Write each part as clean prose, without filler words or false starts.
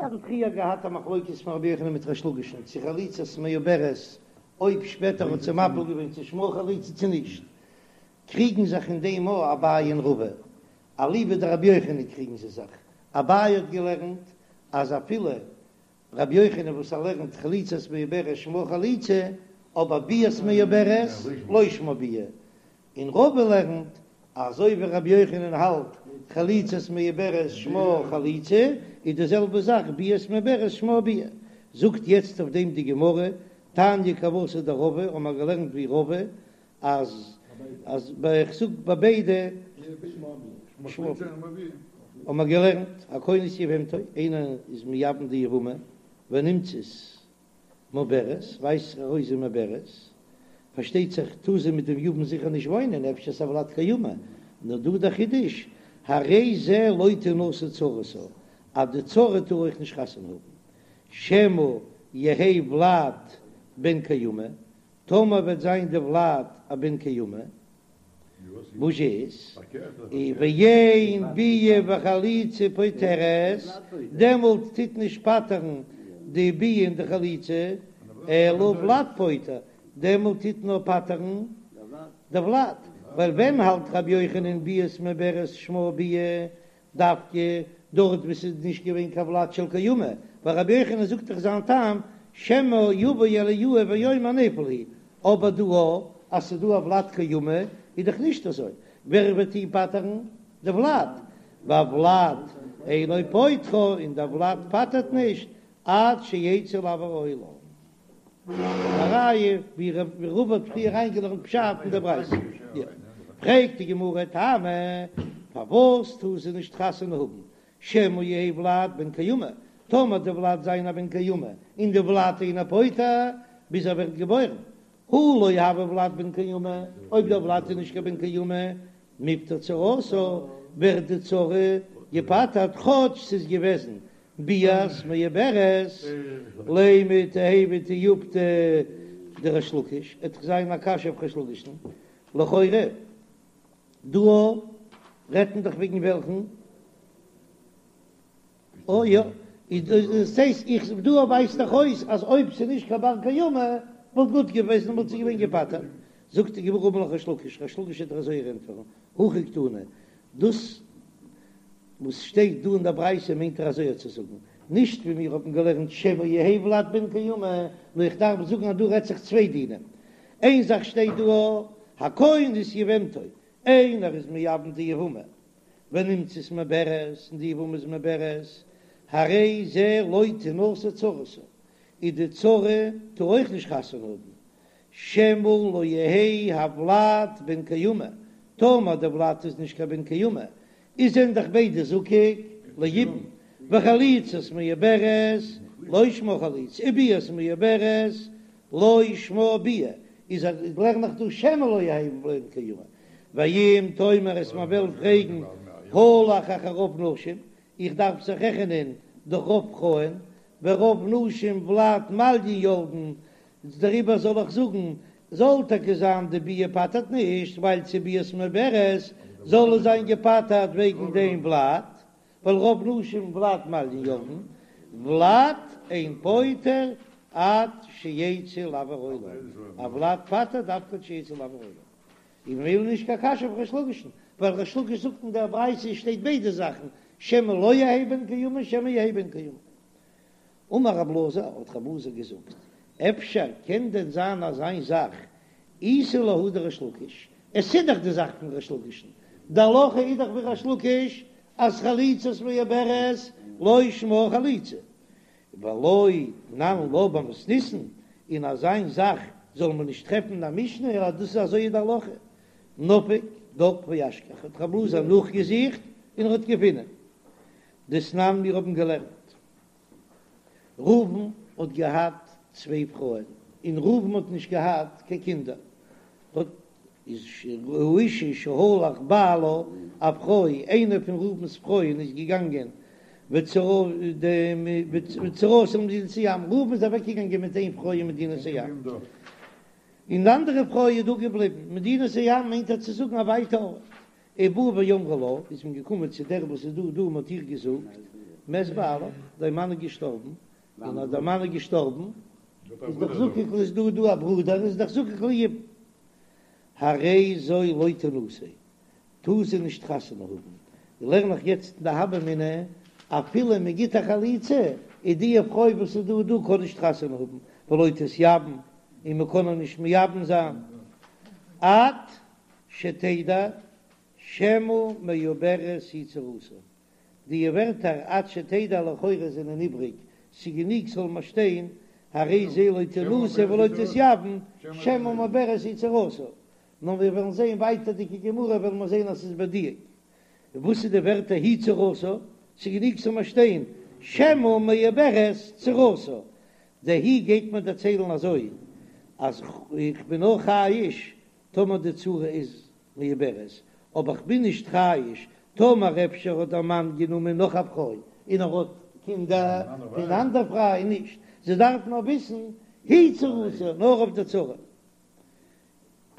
האבן פריער געהאט א מחלוקת פון רבי יוחנן מיט ריש לקיש'ן צו חליצת מעוברת אויב שפעטער האט זי מפיל געווען צו שמה חליצה צו נישט, קריגן זיך אין דעם א אביי און רבא, אליבא דרבי יוחנן קריגן זיי זיך, אביי האט געלערנט אז אפילו רבי יוחנן וואס ער לערנט חליצת מעוברת שמה חליצה, אבער ביאת מעוברת לא שמה ביאה, און רבא לערנט אזוי ווי רבי יוחנן האלט חליצת מעוברת שמה חליצה, איז די זעלבע זאך ביאת מעוברת שמה ביאה. זאגט יעצט אויף דעם די גמרא, תניא כוותיה דרבא, האבן מיר געלערנט ווי רבא, אז אז ביי איך זאג ביי ביידע שמה ביאה, האבן מיר געלערנט הכונס יבמתו, איינער איז מייבם די יבמה ונמצאת מעוברת, ווייזט זיך ארויס זי מעוברת, פארשטייט זיך טאר זי מיט דעם יבם זיכער נישט וואוינען, אפשר ס'איז א ולד קיימא, נאר דא דער חידוש, הרי זה לא תנשא צרתה, אז די צרה טאר אויך נישט חתונה האבן, שמא יהא ולד בן קיימא, טאמער וועט זיין די ולד א בן קיימא, וואס איז ואין ביאה וחליצה פוטרת, דעמאלט טוט נישט פטר'ן די ביאה און די חליצה, אלא ולד פוטר, דעמאלט טוט נאר פטר'ן די ולד, ווייל ווען האלט רבי יוחנן ביאת מעוברת שמה ביאה, דווקא דארט וואו ס'איז נישט געווען קיין ולד של קיימא, ווייל רבי יוחנן זאגט דאך זיין טעם שמא יבוא אליהו ויאמר נפל הוא, אבער דא אז ס'איז דא א ולד קיימא איז דאך נישט אזוי, ווער וועט אים פטר'ן? די ולד, והולד אינו פוטרה, און דער ולד פטר'ט נישט עד שיצא לאויר העולם. א ראיה ווי רבא האט פריער אריינגעלערנט פשט אין דער ברייתא. פרעגט די גמרא טעמא, פארוואס טאר זי נישט חתונה האבן שמא יהא ולד בן קיימא, טאמער די ולד זיין א בן קיימא און די ולד אינו פוטר ביז ער ווערט געבוירן, הא לא הוי ולד בן קיימא, אויב דער ולד איז נישט קיין בן קיימא, מיפטר צרתה, ווערט די צרה געפטר'ט כאטש ס'איז געוועזן ביאת מעוברת, לימא תיהוי תיובתא דריש לקיש, עט דאך זיין א קשיא אויף ריש לקיש'ן, לכאורה דא רעדט מען דאך וועגן וועלכן? אוי יא, איז דאס הייסט איך דא ווייזט דאך אויס אז אויב ס'איז נישט קיין בר קיימא וואלט גוט געוועזן וואלט זי געווען געפטר'ט, זאגט די גמרא אמר לך ריש לקיש, ריש לקיש וועט דיר אזוי ענטפערן, הכי קתני, דאס וואס שטייט דא אין דער ברייתא מיינט ער אזוי צו זאגן, נישט ווי מיר האבן געלערנט שמא יהא ולד בן קיימא, נאר איך דארף זאגן אז דא רעדט זיך צוויי דינים, איין זאך שטייט דא הכונס יבמתו, איינער איז מייבם די יבמה ונמצאת מעוברת און די יבמה איז מעוברת, הרי זה לא תנשא צרתה, איז די צרה טאר אויך נישט חתונה האבן, שמא לא יהא הולד בן קיימא, טאמער די ולד איז נישט קיין בן קיימא, איז זענען דאך ביידע זקוק ליבום, וחליצת מעוברת לא שמה חליצה, וביאת מעוברת לא שמה ביאה, איז לערן איך דא שמא לא יהא בן קיימא, ואם תאמר אז מען וועל פרעגן הלך אחר רוב נשים, איך דארף זיך רעכענען דורך רוב פרויען, ורוב נשים ולד מעליא ילדן, דעריבער זאל איך זאגן, זאל טאקע זיין די ביאה פטר'ט נישט, ווייל ס'איז ביאת מעוברת, זאל עס זיין געפטר'ט וועגן דעם ולד, ווייל רוב נשים ולד מעליא ילדן, ולד אין פוטר עד שיצא לאויר העולם, א ולד פטר'ט דווקא עד שיצא לאויר העולם. און ממילא נישט קיין קשיא אויף ריש לקיש'ן, ווייל ריש לקיש זאגט אין דער ברייתא שטייט ביידע זאכן, שמא לא יהא בן קיימא שמא יהא בן קיימא. אמר רב אלעזר, האט רב אלעזר געזאגט, אפשר קען דען זיין אזיין זאך, איתא להא דריש לקיש, עס איז דאך די זאך פון ריש לקיש'ן, די הלכה איז דאך ווי ריש לקיש אז חליצת מעוברת לא שמה חליצה, ולא תנן לה במתניתין, און אזיין זאך זאל מען נישט טרעפן אין א משנה אז דאס איז אזוי איז די הלכה, נפק דק ואשכח, האט רב אלעזר נאכגעזוכט און ער האט געפונען דתנן מיר האבן געלערנט ראובן האט געהאט צוויי פרויען, און ראובן האט נישט געהאט קיין קינדער, האט איז האשה שהלך בעלה, א פרוי, איינע פון ראובן'ס פרויען איז געגאנגען וצרתה למדינת הים, ראובן איז אוועק געגאנגען מיט איין פרוי אין מדינת הים, און די אנדערע פרוי איז דא געבליבן, מדינת הים מיינט ער צו זאגן א ווייטע ארט, ובאו ואמרו לה, איז מען געקומען צו דער וואס איז דא דא און מען האט איר געזאגט. מת בעלך, דיין מאן איז געשטארבן, און אז דער מאן איז געשטארבן איז דאך זקוק איז דא דא א ברודער איז דאך זקוק ליבום, הרי זו לא תנשא, טאר זי נישט חתונה האבן, לערן איך יעצט אין די הוה אמינא, אפילו מען גיט א חליצה, איז די פרוי וואס איז דא דא קען נישט חתונה האבן, ולא תתייבם, און מען קען איר נישט מייבם זיין, עד שתדע שמא מעוברת היא צרתה, די ווערטער עד שתדע לכאורה זענען איבריג, ס'גענוג ס'זאל מיר שטיין הרי זו לא תנשא ולא תתייבם שמא מעוברת היא צרתה, נאר מיר וועלן זען ווייטערדיגע גמרא וועלן מיר זען אז ס'איז בדיוק. און וואס איז די ווערטער היא צרתה? ס'גענוג ס'זאל מיר שטיין שמא מעוברת צרתה. די היא גייט מיר דערציילן אזוי אז איך בין נאר חייש טאמער די צרה איז מעוברת, אבער כ'בין נישט חייש טאמער אפשר האט דער מאן גענומען נאך א פרוי און ער האט קינדער פון אנדער פרוי נישט, זי דארף נאר וויסן היא צרתה נאר אויף די צרה.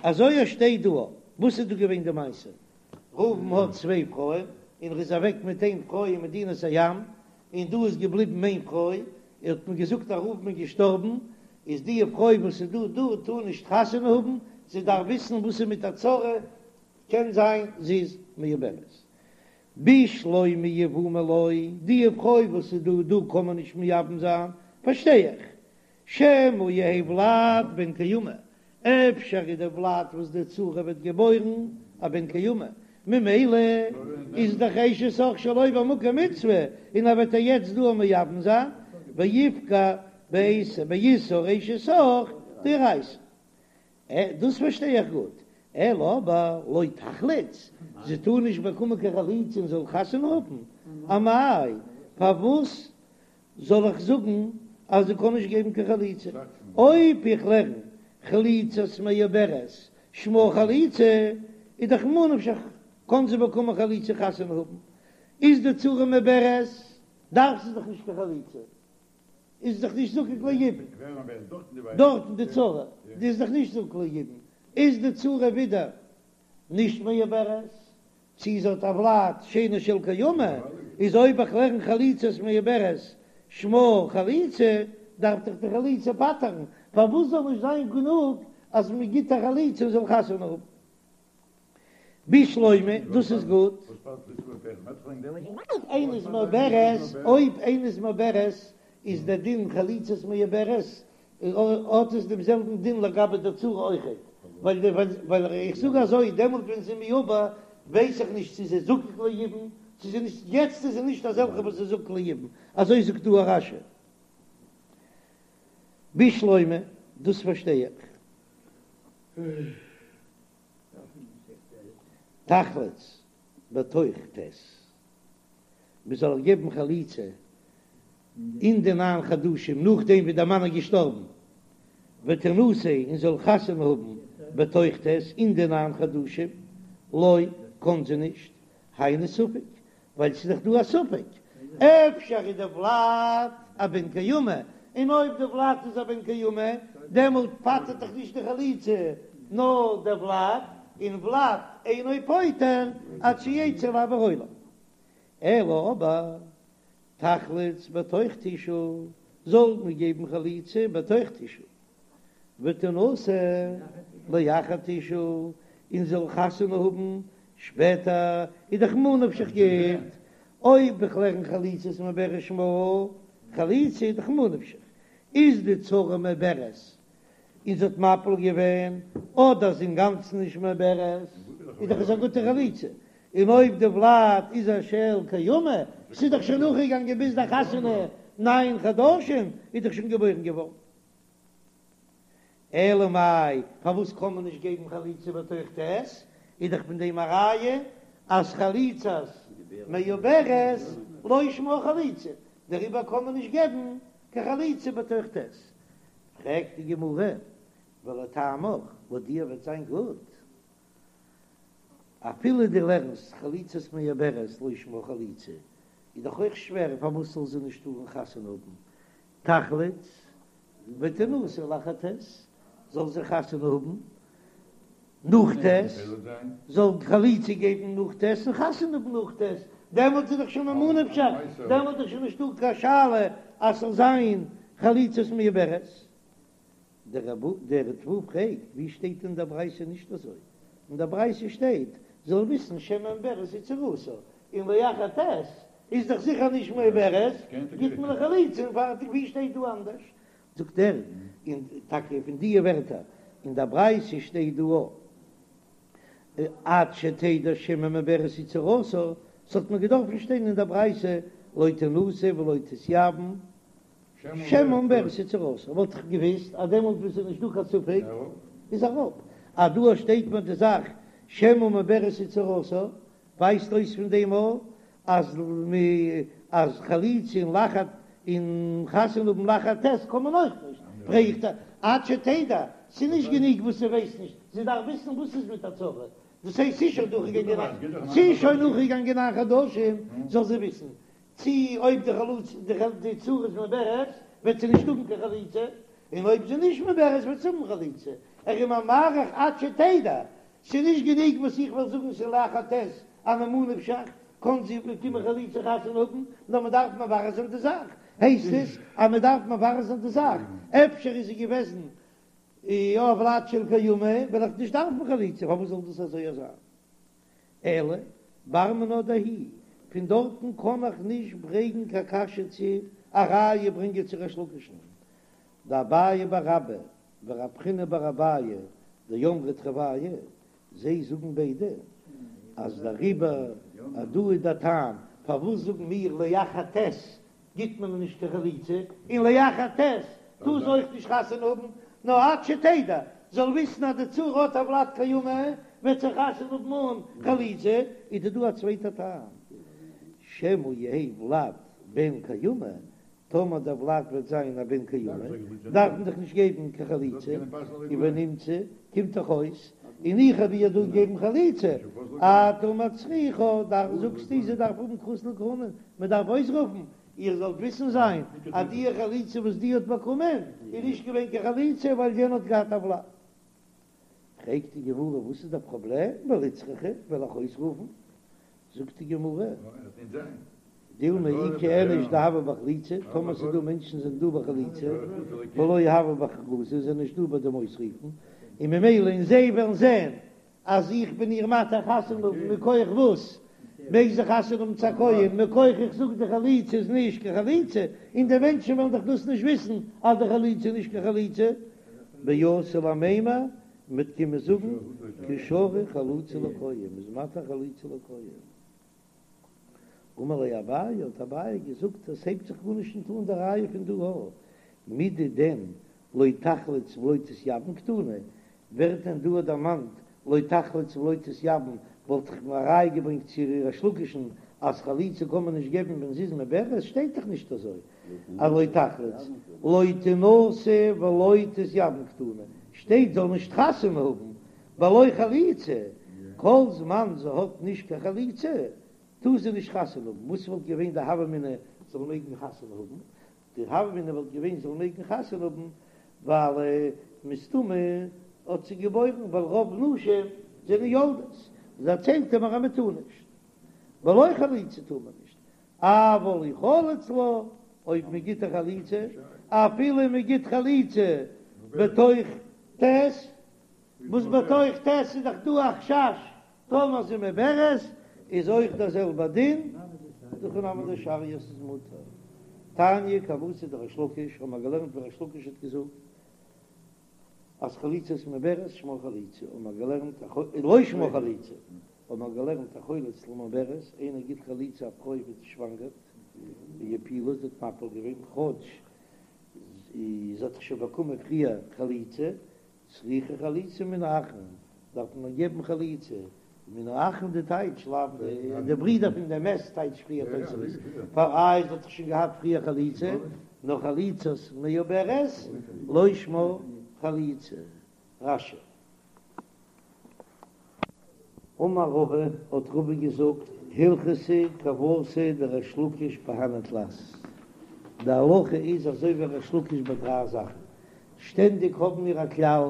אזוי עס שטייט דא. וואס איז דא געווען די מעשה? ראובן האט צוויי פרויען און ער איז אוועק מיט איין פרוי אין מדינת הים, און דא איז געבליבן איין פרוי, האט מען געזאגט אז ראובן איז געשטארבן, איז די פרוי וואס איז דא דא טאר נישט חתונה האבן, זי דארף וויסן וואס איז מיט א צרה, קען זיין זי איז מעוברת. בשלמא יבומי לא, די פרוי וואס איז דא דא קען מען נישט מייבם זיין, פארשטיי איך, שמא יהא ולד בן קיימא, אפשר איז דער ולד וואס די צרה וועט געבוירן א בן קיימא, ממילא איז דאך אשת אח שלא במקום מצוה, און ער וועט איר יעצט דא מייבם זיין, ויפגע באיסור אשת אח דאורייתא. דאס פארשטיי איך גוט, אלא אבער לא תחלוץ, זי טאר נישט באקומען קיין חליצה און זאל חתונה האבן, אמאי פארוואס זאל איך זאגן אז זי קען נישט געבן קיין חליצה? אויב איך לערן חליצת מעוברת שמה חליצה, איז דאך ממה נפשך קען זי באקומען חליצה חתונה האבן, איז די צרה מעוברת דארף זי דאך נישט קיין חליצה, איז דאך נישט זקוק ליבום, דארטן די צרה די איז דאך נישט זקוק ליבום, איז די צרה ווידער נישט מעוברת, צי זי האט א ולד שאינו של קיימא, איז אויב איך לערן חליצת מעוברת שמה חליצה, דארף דאך די חליצה פטר'ן, פארוואס זאל נישט זיין גענוג אז מען גיט א חליצה און זאל חתונה האבן? בשלמא, דאס איז גוט. איינע איז מעוברת, אויב איינע איז מעוברת איז דער דין חליצת מעוברת האט עס דעם זעלבן דין לגבי די צרה אויכעט, ווייל איך זאג אזוי, דעמאלט ווען זי איז מעובר ווייס איך נישט צו זי איז זקוק ליבום, צו זי נישט, יעצט איז זי נישט אזעלכע וואס איז זקוק ליבום, אזוי זאגט דא רש"י. בשלמא, דאס פארשטיי איך. תחלוץ בתוך ט'. מען זאל איר געבן חליצה אין די ניין חדשים נאכדעם ווי דער מאן איז געשטארבן, ותנשא און זאל חתונה האבן בתוך ט' אין די ניין חדשים, לא, קען זי נישט, היינו ספק, ווייל ס'איז דאך דא א ספק, אפשר איז די ולד א בן קיימא, און אויב די ולד איז א בן קיימא, דעמאלט פטר'ט דאך נישט די חליצה, נאר דער ולד, און ולד אינו פוטר עד שיצא לאויר העולם. אלא אבער תחלוץ בתוך תשעה, זאל מען געבן חליצה בתוך תשעה, ותנשא לאחר תשעה, און זאל חתונה האבן שפעטער, איז דאך ממה נפשך גוט, אויב איך לערן חליצת מעוברת שמה חליצה איז דאך ממה נפשך, איז די צרה מעוברת און זי האט מפיל געווען, אדער זי אינגאנצן נישט מעוברת, איז דאך עס א גוטע חליצה, און אויב די ולד איז א של קיימא, ס'איז דאך שוין נאכגעגאנגען ביז די חתונה ניין חדשים, איז דאך שוין געבוירן געווארן. אלא מאי, פארוואס קען מען נישט געבן חליצה בתוך ט'? איז דאך פון דעם א ראיה אז חליצת מעוברת לא שמה חליצה, דעריבער קען מען נישט געבן קיין חליצה בתוך ט'. פרעגט די גמרא, ולטעמיך, לויט דיר וועט זיין גוט אפילו דו לערנסט חליצת מעוברת לא שמה חליצה, איז דאך אויך שווער פארוואס זאל זי נישט טארן חתונה האבן, תחלוץ ותנשא לאחר ט', זאל זי חתונה האבן נאך ט', זאל חליצה געבן נאך ט' און חתונה האבן נאך ט', דעמאלט איז דאך שוין ממה נפשך, דעמאלט איז שוין נישטא קיין שאלה אז ס'זאל זיין חליצת מעוברת. דער ריטב"א פרעגט, ווי שטייט אין דער ברייתא נישט אזוי? אין דער ברייתא שטייט, זאל וויסן שמא מעוברת היא צרתה, און לאחר ט' איז דאך זיכער נישט מעוברת, גיט מען א חליצה און פארטיג, ווי שטייט דא אנדערש? זאגט ער, און טאקע פון די ווערטער אין דער ברייתא שטייט דא עד שתדע שמא מעוברת היא צרתה, ס'האט מיר געדארפן שטיין אין דער ברייתא לא תנשא ולא תתייבם שמא מעוברת היא צרתה, וואלט איך געוויסט אז דעמאלט וואס איז נישט דא קיין ספק איז אראפ, אז דא שטייט מיר די זאך שמא מעוברת היא צרתה, ווייזט אויס פון דעם אויך אז מ אז חליצה און לאחר און חתונה האבן לאחר ט' קען מען אויך נישט, פרעגט ער עד שתדע, ס'איז נישט גענוג וואס זי ווייסט נישט, זי דארף וויסן וואס איז מיט א צרה, דאס הייסט ס'איז שוין דורכגעגאנגען ס'איז שוין נאכגעגאנגען ניין חדשים זאל זי וויסן צי אויב די חלוץ די צרה איז מעוברת וועט זי נישט האבן קיין חליצה, און אויב זי נישט מעוברת וועט זי האבן חליצה, ער איז מאריך עד שתדע, ס'איז נישט גענוג וואס איך וועל זאגן ס'איז לאחר ט' אז ממה נפשך קען זי באקומען חליצה חתונה האבן, נאר מ'דארף מברר זיין די זאך, הייסט עס אז מ'דארף מברר זיין די זאך, אפשר איז זי געוועזן יא ולד של קיימא, וועל איך נישט דארפן חליצה, פארוואס זאל דאס אזוי זיין? אלא בר מינה דהיא, פון דארטן קען איך נישט ברענגן קיין קשיא צו א ראיה ברענגען צו ריש לקיש'ן, דאביי בר אבא ורב חיננא בר אביי דאמרי תרוייהו, זיי זאגן ביידע אז דעריבער אז דא איז דער טעם פארוואס זאגן מיר לאחר ט' גיט מען נישט קיין חליצה, און לאחר ט' טאר זי אויך נישט חתונה האבן, נאר עד שתדע, זאל וויסן אז די צרה האט א ולד קיימא, וועט זי חתונה האבן אן חליצה, איז דא דא א צווייטע טעם, שמא יהא ולד בן קיימא, טאמער דער ולד וועט זיין א בן קיימא, דארף מען דאך נישט געבן קיין חליצה, און ונמצא קומט דאך אויס, און איך האב איר דא געגעבן חליצה, אתה מצריכה, דאך זאגסטו זי דארף האבן כרוז לכהונה, מען דארף אויסרופן, איר זאלט וויסן זיין אז די חליצה וואס די האט באקומען איז נישט געווען קיין חליצה ווייל יענע האט געהאט א ולד. פרעגט די גמרא וואס איז דער פראבלעם, ולצרכה וועל איך אויסרופן, זאגט די גמרא, דילמא איכא איניש דהוה בחליצה, טאמער ס'איז דא מענטשן זענען דא בחליצה, ולא הוו בהכרזה, זענען נישט דא ביי דעם אויסרופן, און ממילא און זיי וועלן זען אז איך בין איר מתיר חתונה האבן מכח וואס מעג זי חתונה האבן צו א כהן, מכח איך זאג די חליצה איז נישט קיין חליצה, און די מענטשן וועלן דאך דאס נישט וויסן אז די חליצה איז נישט קיין חליצה, ואתו למימר, מ'וועט קומען זאגן קא שרי חליצה לכהן, מ'איז מתיר חליצה לכהן. אמר ליה אביי, האט אביי געזאגט, עס הייבט זיך גארנישט נישט אן די ראיה פון דא א, מידי דען לא תחלוץ ולא תתייבם קתני, ווערט דען דא דערמאנט לא תחלוץ ולא תתייבם, וואלט איך א ראיה געברענגט צו ריש לקיש'ן אז חליצה קען מען נישט געבן ווען זי איז מעוברת, שטייט דאך נישט אזוי אז לא תחלוץ, לא תנשא ולא תתייבם קתני, שטייט זאל נישט חתונה האבן בלא חליצה, כל זמן זי האט נישט קיין חליצה טאר זי נישט חתונה האבן, וואס וואלט געווען די הוה אמינא זאל מעגן חתונה האבן? די הוה אמינא וואלט געווען זאל מעגן חתונה האבן ווייל מסתמא האט זי געבוירן ווייל רוב נשים זענען יולדות, דערציילט ער מיר אז מען טאר נישט, בלא חליצה טאר מען נישט, אבל אי חלץ לה, אויב מען גיט א חליצה, אפילו מען גיט חליצה בתוך ט', וואס בתוך ט' איז דאך דא א חשש טאמער זי מעוברת, איז אויך דער זעלבער דין, דהכי נמי דשריא ס'איז מותר. תניא כוותיה דריש לקיש, האבן מיר געלערנט ווי ריש לקיש האט געזאגט אז חליצת מעוברת שמה חליצה, האבן מיר געלערנט לא שמה חליצה, האבן מיר געלערנט החולץ למעוברת, איינער גיט חליצה א פרוי וואס שוואנגערט, והפילה זי האט מפיל געווען, כאטש זי האט דאך שוין באקומען פריער חליצה, צריכה חליצה מן האחין, דארף מען געבן חליצה מן האחין די טייטש לאו די ברידער פון די מת טייטש פריער תוספות פאר איי זי האט דאך שוין געהאט פריער חליצה נאר חליצת מעוברת לא שמה חליצה רש"י. אמר רבא, האט רבא געזאגט, הלכתא כוותיה דריש לקיש בהני תלת, די הלכה איז אזוי ווי ריש לקיש ביי דריי זאכן, שטענדיג האבן מיר א כלל,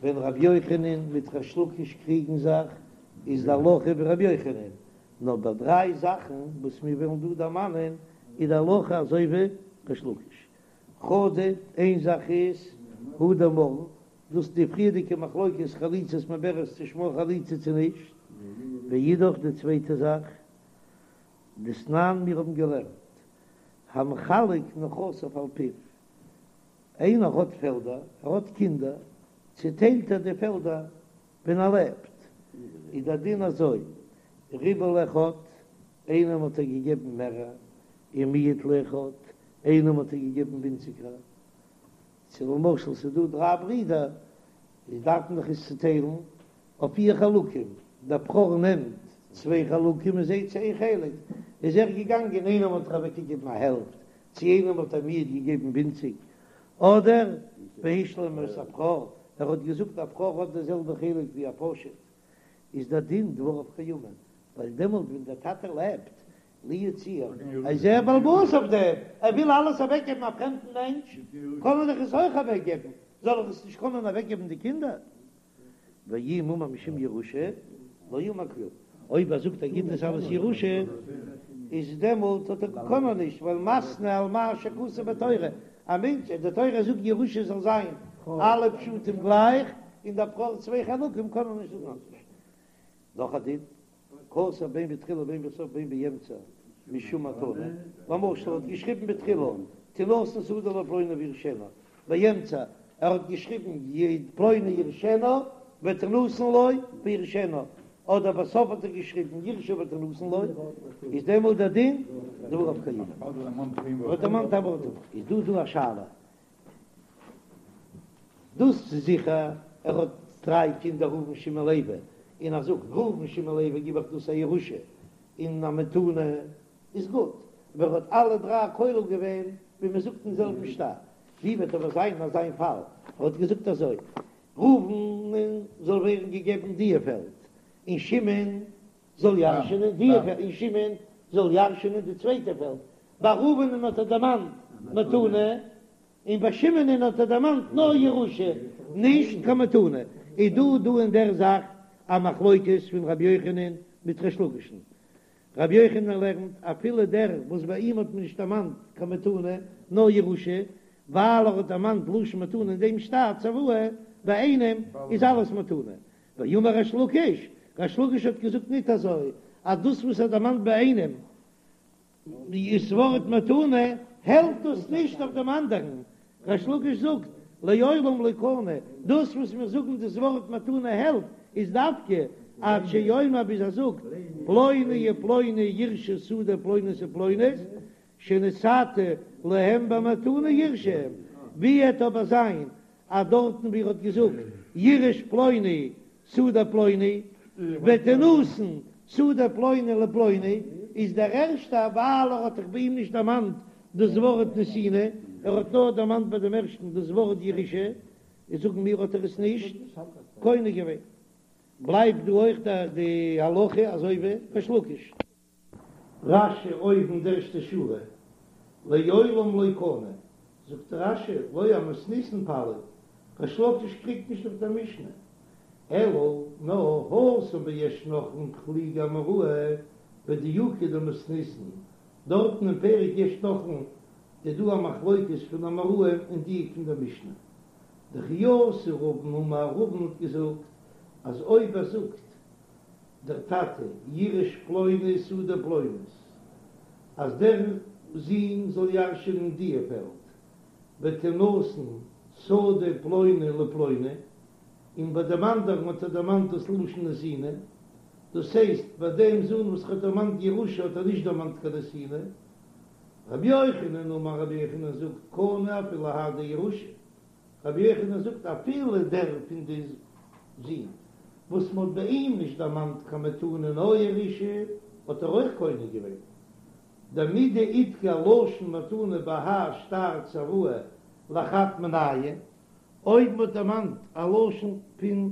ווען רבי יוחנן מיט ריש לקיש קריגן זיך, איז די הלכה ווי רבי יוחנן. נאר ביי דריי זאכן וואס מיר וועלן דא דערמאנען איז די הלכה אזוי ווי ריש לקיש. חדא, איין זאך איז הא דאמרן, דאס די פריערדיגע מחלוקת חליצת מעוברת צו שמה חליצה צו נישט, ואידך די צווייטע זאך, דתנן מיר האבן געלערנט, המחלק נכסיו על פיו, איינער האט פעלדער, ער האט קינדער, צוטיילט ער די פעלדער ווען ער לעבט, איז דער דין אזוי, ריבה לאחד, איינעם האט ער געגעבן מערער, ומיעט לאחד, איינעם האט ער געגעבן ווינציגער, צו למשל ס'איז דא דריי ברידער, איז דארף מען דאך עס צוטיילן אויף פיר חלקים, דער בכור נעמט צוויי חלקים און זיי צו איין חלק, איז ער געגאנגען איינעם האט ער אוועקגעגעבן א העלפט, צו איינעם האט ער מיעט געגעבן ווינציג, אדער והשלים את הבכור, ער האט געזאגט א בכור האט די זעלבע חלק ווי א פשוט, איז דער דין דבריו קיימין, ווייל דעמאלט ווען דער טאטע לעבט, לו יצויר, איז ער בעל הבית אויף דעם, ער וויל אלעס אוועקגעבן א פרעמדן מענטש, קען ער דאך עס אויך אוועקגעבן, זאל ער עס נישט קענען אוועקגעבן די קינדער? ואם אמר משום ירושה, לא אמר כלום. אויב ער זאגט ער גיט עס אלס ירושה, איז דעמאלט האט ער קען ער נישט, ווייל מתנה על מה שכתוב בתורה, א מענטש, די תורה זאגט ירושה זאל זיין אלע פשטים גלייך, און דער בכור צוויי חלקים קען ער נישט זאגן אנדערש. נאך א דין. כתב בין בתחילה בין בסוף בין באמצע משום מתנה, למשל ער האט געשריבן בתחילה תינתן שדה לפלוני וירשנה, באמצע ער האט געשריבן פלוני ירשנה ותינתן לו וירשנה, אדער בסוף האט ער געשריבן ירשה ותינתן לו, איז דעמאלט דער דין דבריו קיימין. ער האט דערמאנט א ווארט איז דא דא א שאלה דאס איז זיכער ער האט דריי קינדער ראובן שמעון לוי, און ער זאגט ראובן שמעון לוי גיב איך דאס א ירושה און א מתנה איז גוט, אבער ער האט אלע דריי כולל געווען ווי מען זאגט אין זעלבן שטר, ווי וועט אבער זיין אזא איין פאל ער האט געזאגט אזוי ראובן זאל ווערן געגעבן דיע פעלד און שמעון זאל ירש'ענען דיע פעלד און שמעון זאל ירש'ענען די צווייטע פעלד, ביי ראובנ'ן האט ער דערמאנט מתנה און ביי שמעונ'ן האט ער דערמאנט נאר ירושה, נישט קיין מתנה. איז דא דא אין דער זאך א מחלוקת פון רבי יוחנן מיט ריש לקיש'ן. רבי יוחנן לערנט אפילו דער וואס ביי אים האט מען נישט דערמאנט קיין מתנה נאר ירושה, ווייל ער האט דערמאנט לשון מתנה אין דעם שטר צוואה, ביי איינעם איז אלעס מתנה. ואמר ריש לקיש, ריש לקיש האט געזאגט ניט אזוי, אז דאס וואס ער דערמאנט ביי איינעם, דאס ווארט מתנה העלפט דאס נישט אויף דעם אנדערן, ריש לקיש זאגט לעולם לא קנה, דאס וואס מיר זאגן דאס ווארט מתנה העלפט איז דווקא עד שיאמר ביז ער זאגט פלוני ופלוני יירשו שדה פלונית ופלונית שנתתי להם במתנה יירשו הם, ווי עט אבער זיין אז דארטן ווי ער האט געזאגט יירש פלוני שדה פלוני ותינתן שדה פלוני לפלוני, איז דער ערשטער ווייל ער האט דאך ביי אים נישט דערמאנט דאס ווארט נתינה, ער האט נאר דערמאנט ביי דעם ערשטן דאס ווארט ירושה, איז זאגן מיר האט ער עס נישט קונה געווען. בלייבט דא אויך די הלכה אזוי ווי ריש לקיש. רש"י אויבן די ערשטע שורה, לעולם לא קנה, זאגט רש"י, לא אמתניתין פליג, ריש לקיש קריגט נישט אויף דער משנה, אלא נאר התם ביש נוחלין פליגי אמוראי בדיוקא דמתניתין, דארטן אין פרק יש נוחלין איז דא א מחלוקת פון אמוראים אין דיוק פון דער משנה. דכי אתא רבין אמר רבין האט געזאגט אז אויב ער זאגט דער טאטע יירש פלוני שדה פלונית, אז דער זון זאל ירש'ענען דיע פעלד, ותינתן שדה פלוני לפלוני, און ביי דעם אנדערן האט ער דערמאנט דאס לשון נתינה, דאס הייסט ביי דעם זון וואס ער האט דערמאנט ירושה האט ער נישט דערמאנט קיין נתינה. רבי יוחנן אמר רבי יוחנן זאגט קנה אפילו האי דירושה, רבי יוחנן זאגט אפילו דער פון די זין וואס מ'האט ביי אים נישט דערמאנט קיין מתנה נאר ירושה האט ער אויך קונה געווען דמדאידכר לשון מתנה בהאי שטר צוואה לחד מינייהו, אויב מ'האט דערמאנט א לשון פון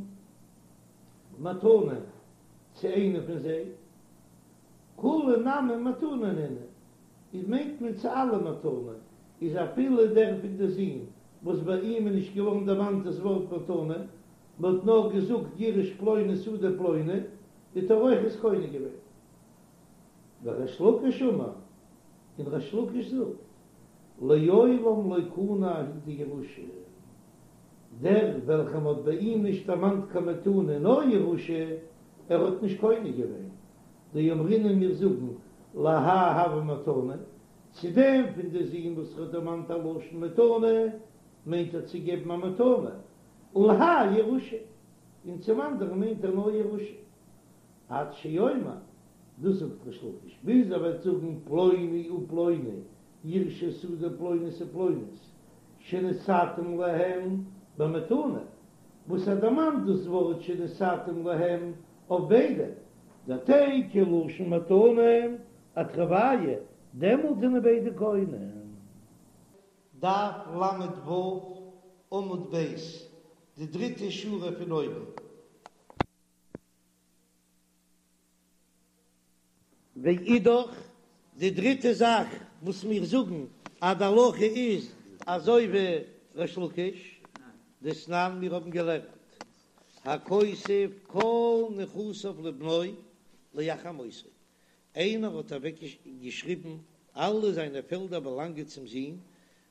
מתנה צו איינע פון זיי, כולהו נמי מתנה נינהו, איז מיינט מען צו אלע מתנה, איז אפילו דער פון די זין וואס ביי אים איז נישט געווארן דערמאנט דאס ווארט מתנה, מען האט נאר געזאגט יירש פלוני שדה פלוני, האט ער אויך עס קונה געווען. וריש לקיש אמר, און ריש לקיש זאגט, לעולם לא קנה ההוא דירושה, דער וועלכער מ'האט ביי אים נישט דערמאנט קיין מתנה נאר ירושה, ער האט נישט קונה געווען, דאמרינן מיר זאגן להאי הוה מתנה, צו דעם פון די זין וואס ער האט דערמאנט א לשון מתנה, מיינט ער צו געבן א מתנה, ולהאי ירושה, און צום אנדערן מיינט ער נאר ירושה. עד שיאמר, דאס זאגט ריש לקיש, ביז ער וועט זאגן פלוני ופלוני יירשו שדה פלונית ופלונית שנתתים להם במתנה, וואס ער דערמאנט דאס ווארט שנתתים להם אויף ביידע, דתיקו לשון מתנה אתרוייהו, דעמאלט זענען ביידע קונה. דף ל"ו עמוד ב', די דריטע שורה פון אויבן. ואידך, די דריטע זאך וואס מיר זאגן אז די הלכה איז אזוי ווי ריש לקיש, דתנן מיר האבן געלערנט, הכותב כל נכסיו לבנו לאחר מותו, איינער האט אוועק געשריבן אלע זיינע פעלדער באלאנגען צום זון,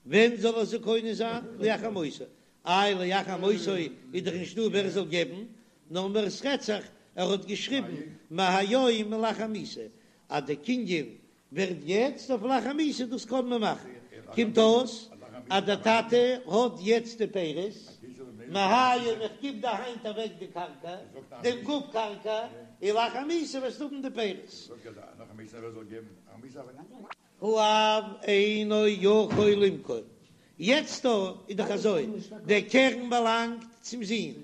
ווען זאל ער זיי קונה זיין? לאחר מותו. איי לאחר מותו איז דאך נישט דא ווער זאל געבן, נאר מער עס רעדט זיך ער האט געשריבן מהיום ולאחר מיתה אז די קנין ווערט יעצט אויף לאחר מיתה דאס קען מען מאכן, קומט אויס אז דער טאטע האט יעצט די פירות, מהיום איך גיב דיר היינט אוועק די קרקע, דעם גוף קרקע, און לאחר מיתה וועסטו האבן די פירות. האב אינו יכול למכור, יעצט דא איז דאך אזוי, דער קרן באלאנגט צום זון,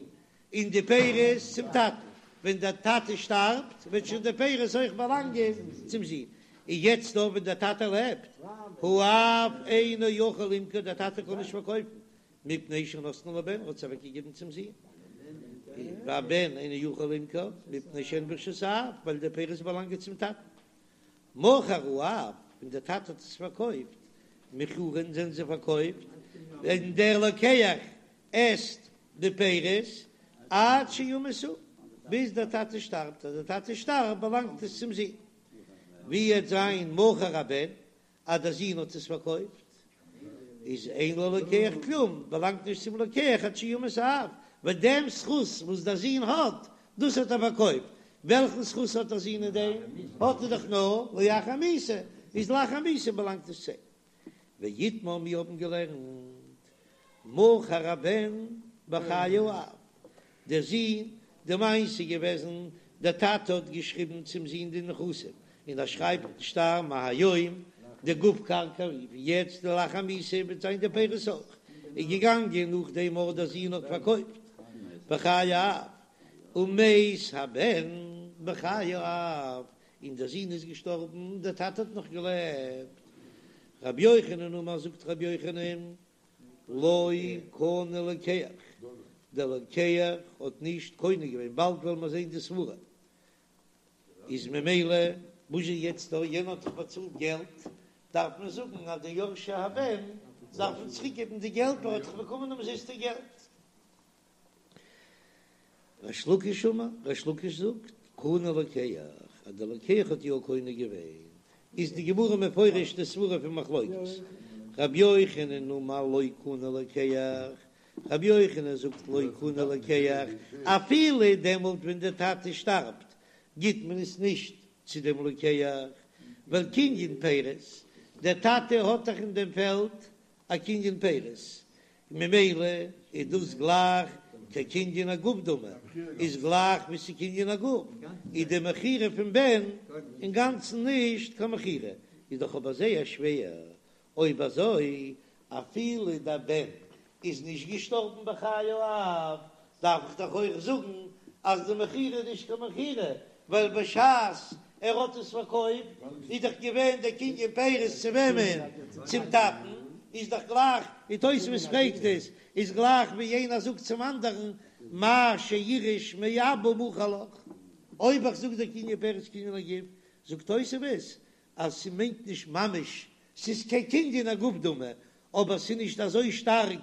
און די פירות צום טאטן, ווען דער טאטע שטארבט וועט שוין די פירות אויך באלאנגען צום זון, און יעצט דא ווען דער טאטע לעבט, האב אינו יכול למכור, דער טאטע קען נישט פארקויפן, מפני שנתנה לבן, ער האט עס אוועקגעגעבן צום זון, והבן אינו יכול למכור, מפני שהן ברשות האב, ווייל די פירות באלאנגען צום טאטן. מכר האב, ווען דער טאטע האט עס פארקויפט, מכורין זענען זיי פארקויפט, און דער לוקח עסט די פירות עד שימות הוא, ביז דער טאטע שטארבט, אז דער טאטע שטארבט באלאנגט עס צום זון. ווי וועט זיין מכר הבן, אז דער זון האט עס פארקויפט, איז אין ללוקח כלום, באלאנגט נישט צום לוקח עד שימות האב, ווייל דעם זכות וואס דער זון האט, דאס האט ער פארקויפט, וועלכן זכות האט דער זון אין דעם? האט ער דאך נאר לאחר מיתה, איז לאחר מיתה באלאנגט עס צו אים. ואיתמר מיר האבן געלערנט, מכר הבן בחיי האב, דער זון, די מעשה איז געוועזן, דער טאטע האט געשריבן צום זון די נכסים, און ער שרייבט אין שטר מהיום, די גוף קרקע ווי יעצט לאחר מיתה וועט זיין די פירות אויך, איז געגאנגען נאכדעם אויך דער זון האט פארקויפט בחיי האב, ומת הבן בחיי האב, און דער זון איז געשטארבן, דער טאטע האט נאך געלעבט. רבי יוחנן אמר זאגט רבי יוחנן, לא קנה לוקח, דער לוקח האט נישט קונה געווען, באלד וועלן מיר זען די סברה, איז ממילא וואס איז יעצט דא, יענער האט דאך באצאלט געלט, דארף מען זאגן אז די יורשי הבן דארפן צוריק געבן די געלט, ווייל ער האט דאך באקומען אומזיסטע געלט. ריש לקיש אמר, ריש לקיש זאגט, קנה לוקח, אז דער לוקח האט יא קונה געווען, איז די גמרא מפרש די סברה פון מחלוקת, רבי יוחנן אמר לא קנה לוקח, רבי יוחנן זאגט לא קנה לוקח, אפילו דעמאלט ווען דער טאטע שטארבט גיט מען עס נישט צו דעם לוקח, ווייל קנין פירות, דער טאטע האט דאך אין דעם פעלד א קנין פירות, ממילא איז דאס גלייך כקנין הגוף דמי, איז גלייך ווי ס'קנין הגוף, איז די מכירה פון בן אינגאנצן נישט קיין מכירה, איז דאך אבער זייער שווער, אויב אזוי אפילו דער בן איז נישט געשטארבן בחיי האב, דארף איך דאך אויך זאגן אז די מכירה איז נישט קיין מכירה, ווייל בשעת ער האט עס פארקויפט איז דאך געווען דער קנין פירות צו וועמען? צום טאטן, איז דאך גלייך, ווי תוספות פרעגט עס, איז גלייך ווי איינער זאגט צום אנדערן מה שאירש מאבא מוכר לך, אויב איך זאג דער קנין פירות קנין הגוף, זאגט תוספות אז ס'מיינט נישט ממש, ס'איז כקנין הגוף דמי, אבער ס'איז נישט אזוי שטארק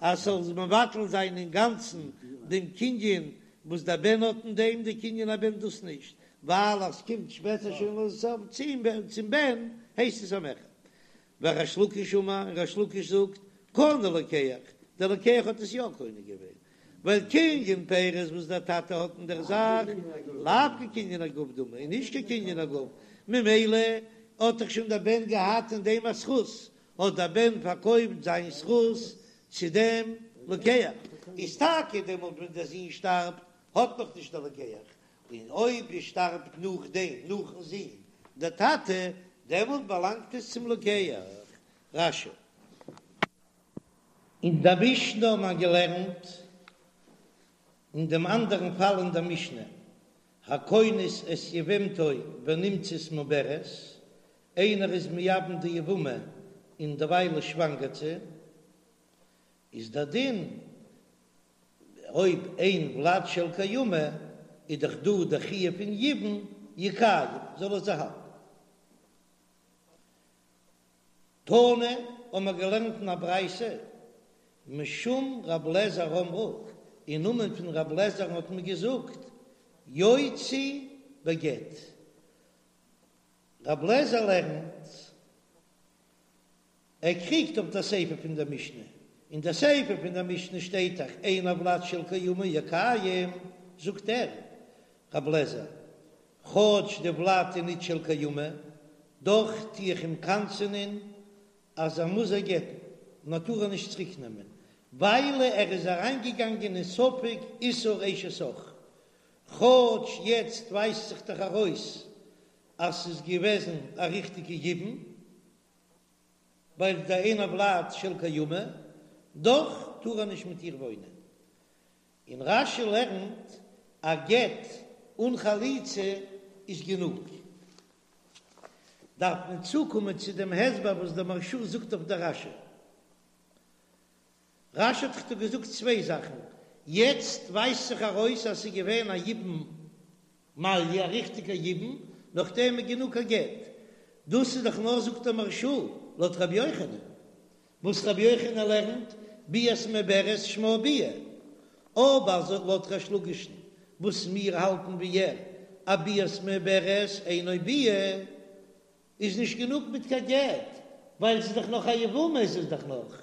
אז ס'זאל מבטל זיין אינגאנצן דעם קנין וואס דער בן האט אין דעם, די קנין הבן דאס נישט, ווייל אז ס'קומט שפעטער שוין לסוף צום בן הייסט עס א מכר. וריש לקיש אמר, און ריש לקיש זאגט, קנה לוקח, דער לוקח האט עס יא קונה געווען, ווייל קנין פירות וואס דער טאטע האט אין דער זאך, לאו כקנין הגוף דמי, איז נישט כקנין הגוף, ממילא האט דאך שוין דער בן געהאט אין דעם א זכות, האט דער בן פארקויפט זיין זכות צו דעם לוקח, איז טאקע דעמאלט ווען דער זון שטארבט האט נאך נישט דער לוקח, און אויב ער שטארבט נאכדעם, נאכן זון, דער טאטע, דעמאלט באלאנגט עס צום לוקח. רש"י. אין דער משנה האט מען געלערנט אין דעם אנדערן פאל אין דער משנה, הכונס את יבמתו ונמצאת מעוברת, איינער איז מייבם די יבמה און דערווייל שוואנגערט זי, איז דער דין אויב אין ולד של קיימא איז דאך דא דער חיוב פון יבום יקיים זאל ער זי האלטן. תנא האבן מיר געלערנט אין א ברייתא משום רב לעזער אמרו, אין נאמען פון רב לעזער'ן האט מען געזאגט יוציא בגט. רב לעזער לערנט ער קריגט אויף דער סיפא פון דער משנה, אין דער סיפא פון דער משנה שטייט דאך אין הולד של קיימא יקיים, זאגט ער, רב לעזער, כאטש די ולד איז ניט של קיימא, דאך טו איך אים קנס'ענען אז ער מוז איר גט'ן, און ער טאר איר נישט צוריק נעמען, וויילע ער איז אריינגעגאנגען אין ספק איסור אשת אח, כאטש יעצט ווייזט זיך דאך ארויס אז ס'איז געוועזן א ריכטיגע יבום. ווייל דאין הולד של קיימא, דאך טאר ער נישט מיט איר וואוינען. און רש"י לערנט א גט אן חליצה איז גענוג. דארף מען צוקומען צו דעם הסבר וואס דער מהרש"א זאגט אויף דער רש"י. רש"י האט דאך דא געזאגט צוויי זאכן, יעצט ווייזט זיך ארויס אז ס'איז געווען א יבום מלא, א ריכטיגע יבום, נאכדעם איז גענוג א גט. דאס איז דאך נאר זאגט דער מהרש"א לויט רבי יוחנן, וואס רבי יוחנן לערנט ביאת מעוברת שמה ביאה, אבער לויט ריש לקיש'ן וואס מיר האלטן ווי ער אז ביאת מעוברת אינו ביאה, איז נישט גענוג מיט קיין גט, ווייל ס'איז דאך נאך א יבמה איז עס דאך נאך,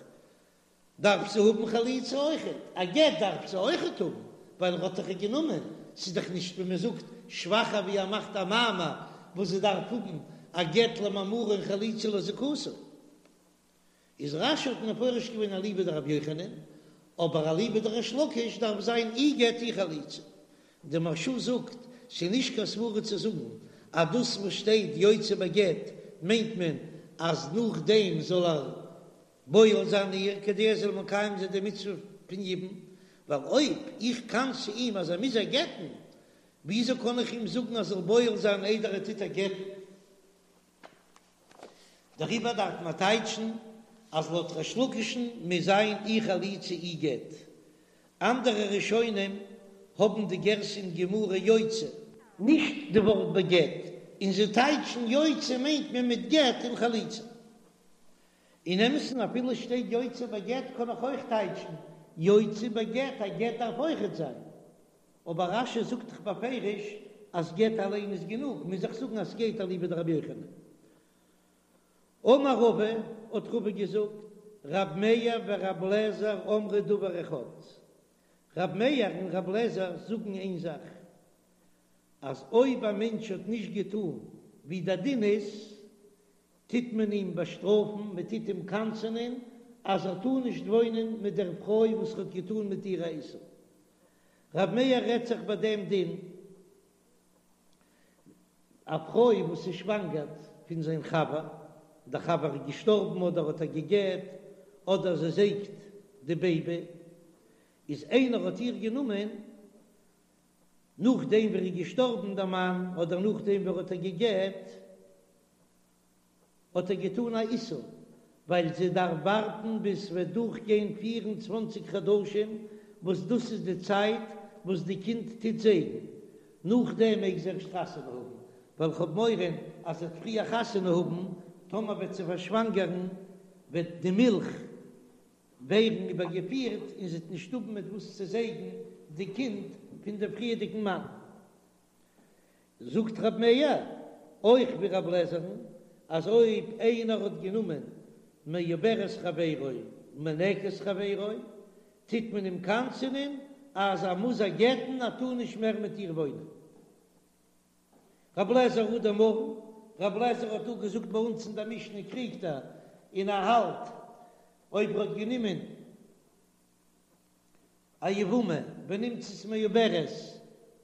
דארף זי האבן חליצה אויכעט, א גט דארף זי אויכעט האבן, ווייל ער האט דאך איר גענומען, ס'איז דאך נישט ווי מען זאגט שוואכער ווי ער מאכט א מאמר וואס זי דארף האבן א גט למאמרו און חליצה לזיקתו. איז רש"י האט מפרש געווען אליבא דרבי יוחנן, אבער אליבא דריש לקיש דארף זיין אי גט אי חליצה. די מהרש"א זאגט, ס'איז נישט קיין סברא צו זאגן אז דאס וואס שטייט יוציא בגט מיינט מען אז נאכדעם זאל ער בועל זיין איר כדי ער זאל מקיים זיין די מצוה פון יבום, ווייל אויב איך קנס'ע אים אז ער מוז איר גט'ן, וויאזוי קען איך אים זאגן אז ער זאל בועל זיין איידער ער טוט איר גט'ן? דעריבער דארף מען טייטשן אז לויט ריש לקיש'ן מוז זיין אי חליצה אי גט. אנדערע ראשונים האבן די גירסא אין גמרא יוציא. נישט די ווארט בגט, און זיי טייטשן יוציא מיינט מען מיט גט און חליצה. אין אמת'ן אפילו שטייט יוציא בגט קען איך אויך טייטשן יוציא בגט, א גט דארף אויכעט זיין. אבער רש"י זאגט דאך בפירוש אז גט אליין איז גענוג, מוז איך זאגן אז ס'גייט אליבא דרבי יוחנן. אמר רבא, האט רבא געזאגט, רב מאיר ורב לעזר אמרו דבר אחד, רב מאיר און רב לעזר זאגן איין זאך, אז אויב א מענטש האט נישט געטאן ווי דער דין איז, טוט מען אים באשטראפן, מען טוט אים קנס'ענען אז ער טאר נישט וואוינען מיט דער פרוי וואס ער האט געטאן מיט איר א איסור. רב מאיר רעדט זיך ביי דעם דין, א פרוי וואס איז שוואנגערט פון זיין חבר, דער חבר איז געשטארבן אדער האט איר גע'גט, אדער זי זייגט די בעיבי, איז איינער האט איר גענומען נאכדעם ווי ער איז געשטארבן דער מאן, אדער נאכדעם ווי ער האט איר גע'גט, האט ער געטאן א איסור, ווייל זי דארף ווארטן ביז ס'וועט דורכגיין 24 חדשים, וואס דאס איז די צייט וואס די קינד טוט זייגן, נאכדעם מעג זי ערשט חתונה האבן, ווייל כ'האב מורא אז זי וועט פריער חתונה האבן, טאמער וועט זי פארשוואנגערן וועט די מילך ווערן איבערגעפירט און זי וועט נישט האבן מיט וואס צו זייגן די קינד פון דעם פריערדיגן מאן. זאגט רב מאיר אויך ווי רב לעזער'ן אז אויב איינער האט גענומען מעוברת חברו מינקת חברו טוט מען אים קנס'ענען אז ער מוז איר גט'ן ער טאר נישט מער מיט איר וואוינען. רב לעזער הא דאמרן, רב לעזער האט דא געזאגט ביי אונז אין דער משנה קריגט ער און ער האלט אויב ער האט גענומען א יבמה ונמצאת מעוברת,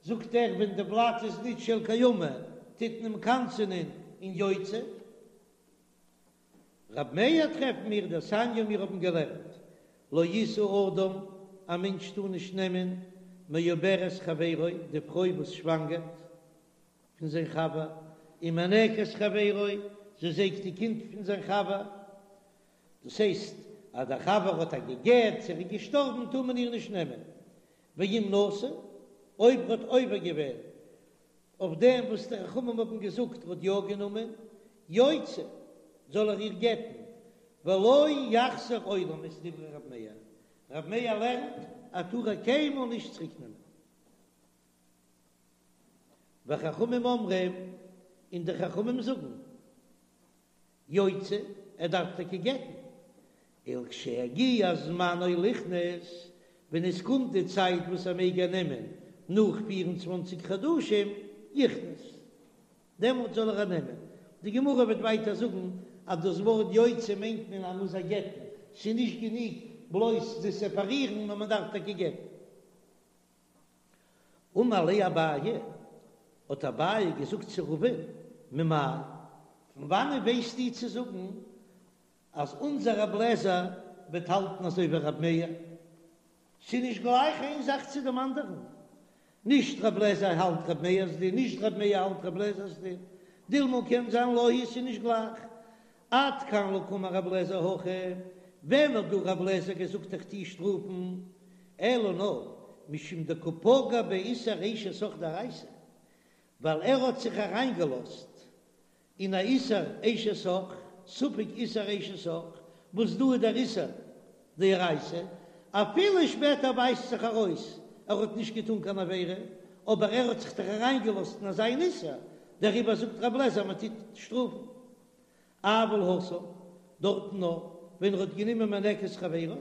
זאגט ער ווען די ולד איז נישט של קיימא טוט מען אים קנס'ענען און יוציא. רב מאיר טרעפן מיר דתניא מיר האבן געלערנט לא ישא אדם א מענטש טאר נישט נעמען מעוברת חברו די פרוי וואס שוואנגערט פון זיין חבר ומינקת חברו זי זייגט די קינד פון זיין חבר דאס הייסט אז דער חבר האט איר גע'גט צו ער איז געשטארבן טאר מען איר נישט נעמען ואם נשא אויב ער האט עובר געווען אויף דעם וואס די חכמים האבן געזאגט ער האט יא גענומען, יוציא, זאל ער איר גט'ן, ולא יחזיר עולם את דברי רב מאיר, רב מאיר לערנט אז טאר איר קיינמאל נישט צוריק נעמען. וחכמים אומרים, און די חכמים זאגן, יוציא, ער דארף טאקע גט'ן, ולכשיגיע זמנו ליכנס, ווען עס קומט די צייט וואס ער מעג איר נעמען, נאך פיר און צוואנציג חדשים, יכנס, דעמאלט זאל ער איר נעמען. די גמרא וועט ווייטער זאגן אז דאס ווארט יוציא מיינט מען אז מ'מוז איר גט'ן, ס'איז נישט גענוג בלויז צו סעפארירן, נאר מען דארף טאקע גט'ן. אמר ליה אביי, האט אביי געזאגט צו רבא'ן, ממאי, פון וואנען ווייסטו צו זאגן אז אונזער רב לעזער וועט האלטן אזוי ווי רב מאיר? ס'איז נישט גלייך איין זאך צו דעם אנדערן, נישט רב לעזער האלט רב מאיר'ס דין, נישט רב מאיר האלט רב לעזער'ס דין, דילמא קען זיין לא היא, ס'איז נישט גלייך. עד כאן לא קאמר רב לעזער הכא, ווען האט דא רב לעזער געזאגט איך טוה שטראפן, אלא נאר משום דקא פגע באיסור אשת אח דאורייתא, ווייל ער האט זיך אריינגעלאזט אין א איסור אשת אח, ספק איסור אשת אח, וואס דא איז דער איסור דאורייתא, אפילו שפעטער ווייזט זיך ארויס ער האט נישט געטון קיין עבירה, אבער ער האט זיך דאך אריינגעלאזט אין אזא איסור, דעריבער זאגט רב לעזער מען טוט שטראפן. אבל התם, דארטן נאר ווען ער האט גענומען מינקת חברו,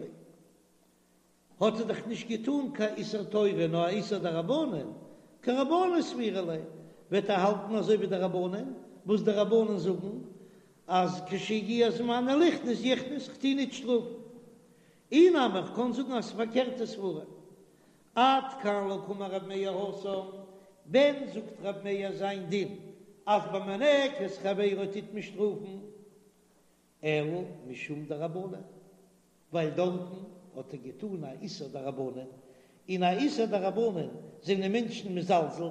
האט ער דאך נישט געטאן קיין איסור תורה נאר א איסור דרבנן, כרבנן סבירא ליה, וועט ער האלטן אזוי ווי די רבנן, וואס די רבנן זאגן אז כשיגיע זמנו ליכנס יכנס, כ'טו ניט שטראפן. אי נמי איך קען זאגן אז ס'פארקערטע סברה. עד כאן לא קאמר רב מאיר התם, ווען זאגט רב מאיר זיין דין אז ביי מינקת חברו טוט מען שטראפן? אלא משום דרבנן, ווייל דארטן האט ער געטאן א איסור דרבנן, און א איסור דרבנן זענען מענטשן מזלזל,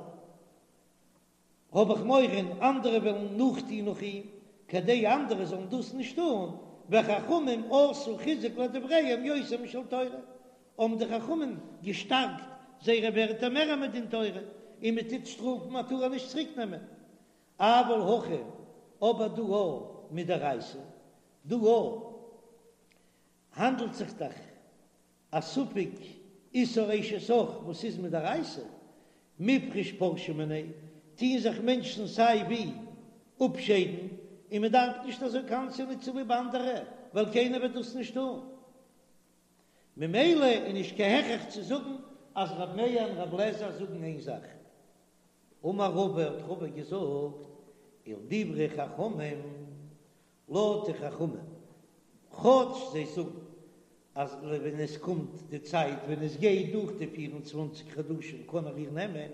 האב איך מורא אנדערע וועלן נאכטון נאך אים, כדי אנדערע זאלן דאס נישט טון, וחכמים עשו חיזוק לדבריהם יותר משל תורה, האבן די חכמים געשטארקט זייערע ווערטער מער מדין תורה, און מען טוט שטראפן מען טאר נישט צוריק נעמען. אבל הכא, אבער דא מדאורייתא, דא האנדלט זיך דאך א ספק איסור אשת אח וואס איז מדאורייתא, מיפרש פרשי מיניה, טוען זיך מענטשן סיי ווי אפשיידן, און מען דארף נישט אזוי קנס'ענען צוליב אנדערע, ווייל קיינער וועט דאס נישט טון. ממילא איז נישט קיין הכרח צו זאגן אז ר' מאיר און ר' אליעזר זאגן איין זאך. אמר רבא האט רבא געזאגט, ולדברי חכמים, לויט די חכמים, כאטש זיי זאגן אז ווען עס קומט די צייט ווען עס גייט דורך די פיר און צוואנציג חדשים קען ער איר נעמען,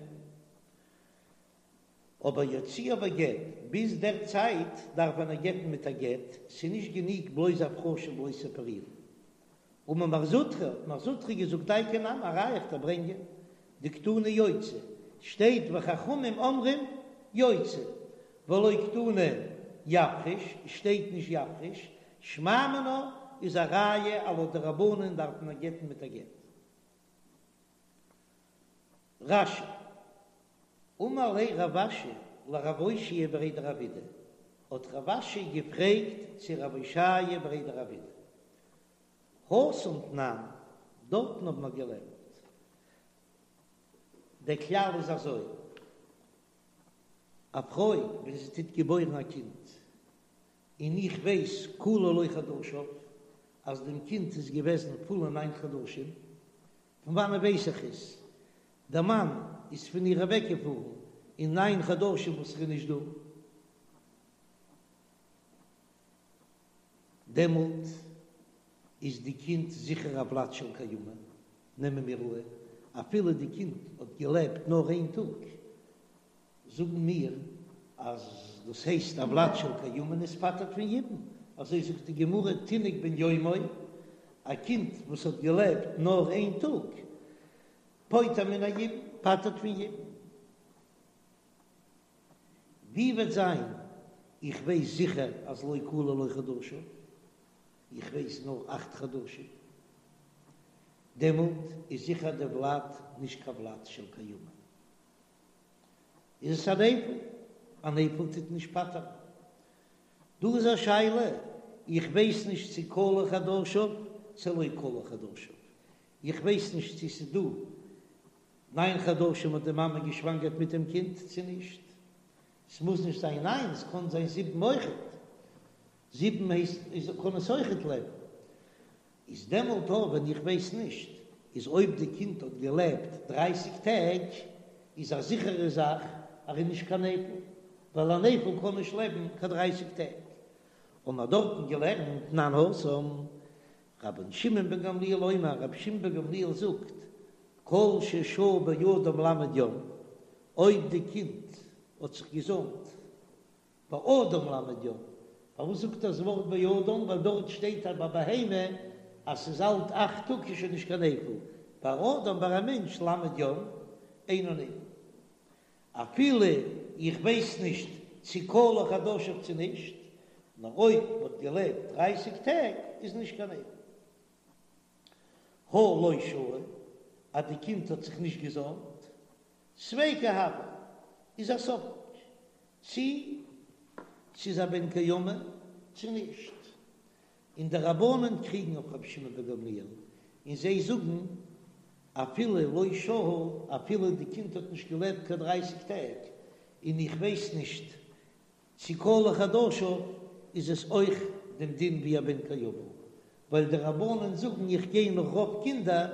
אבער יוציאה בגט, ביז דער צייט דארף מען איר גט'ן מיט א גט, ס'איז נישט גענוג בלויז הפרשה בלויז סעפערירן. אמר מר זוטרא, האט מר זוטרא געזאגט דייקא נמי, א ראיה איך דיר ברענגען, דקתני יוציא, שטייט וחכמים אומרים יוציא, ולא קתני יפריש, שטייט נישט יפריש, שמע מינה איז א ראיה אז לויט די רבנן דארף מען גט'ן מיט א גט. רש"י, אמר ליה רב אשי לרב אושעיא בריה דרב אידי, האט רב אשי געפרעגט צו רב אושעיא בריה דרב אידי, התם תנן, דארטן האבן מיר געלערנט, דער כלל איז אזוי. א פרוי ווען זי טוט געבוירן א קינד, און איך ווייס כלו לו חדשיו אז דעם קינד איז געוועזן פולע ניין חדשים, פון וואנען ווייס איך עס? דער מאן איז פון איר אוועקגעפארן אין ניין חדשים וואס ער איז נישט דא, דעמאלט איז די קינד זיכער א ולד של קיימא, נעמען מיר אן אפילו די קינד האט געלעבט נאר איין טאג, זאגן מיר אז דאס הייסט א ולד של קיימא און עס פטר'ט פון יבום, אזוי זאגט די גמרא תינוק בן יומו, א קינד וואס האט געלעבט נאר איין טאג, פוטר מן היבום, פטר'ט פון יבום. ווי וועט זיין איך ווייס זיכער אז לא כלו לו חדשיו, איך ווייס נאר אכט חדשים, דעמאלט איז זיכער די ולד נישט קיין ולד של קיימא. איז עס א נפל? א נפל טוט נישט פטר'ן. דא איז א שאלה, איך ווייס נישט צו כלו חדשיו צו לא כלו חדשיו, איך ווייס נישט צו ס'איז דא ניין חדשים האט די מאמע געשוואנגערט מיט דעם קינד צו נישט, ס'מוז נישט זיין ניין, ס'קען זיין זיבן אויכעט, זיבן הייסט איז קען עס אויכעט לעבן. איז דעמאלט אויך ווען איך ווייס נישט, איז אויב די קינד האט געלעבט דרייסיג טעג, איז א זיכערע זאך אז ער איז נישט קיין נפל, ווייל א נפל קען נישט לעבן קיין דרייסיג טעג. האבן מיר דארטן געלערנט תנן התם, רבן שמעון בן גמליאל אומר, רבי שמעון בן גמליאל זאגט, כל ששהה באדם ל' יום, אויב די קינד האט זיך געזוימט באדם ל' יום, פארוואס זאגט ער דאס ווארט באדם? ווייל דארט שטייט אז ביי בהמה אז ס'איז אלט אכט טאג איז שוין נישט קיין נפל, ביי אדם ביי א מענטש ל' יום אינו נפל. אפילו איך ווייס נישט צו כלו חדשיו צו נישט, נאר אויב מ'האט געלעבט דרייסיג טעג איז נישט קיין נפל. הא לא שהה, אז די קינד האט זיך נישט געזוימט, ספיקא הוי, איז א ספק צי ס'איז א בן קיימא צו נישט, און די רבנן קריגן אויף רבי שמעון בן גמליאל און זיי זאגן אפילו לא שהה, אפילו די קינד האט נישט געלעבט קיין דרייסיג טעג, און איך ווייס נישט צו כלו חדשיו, איז עס אויך דעם דין ווי א בן קיימא, ווייל די רבנן זאגן איך גיי נאך רוב קינדער,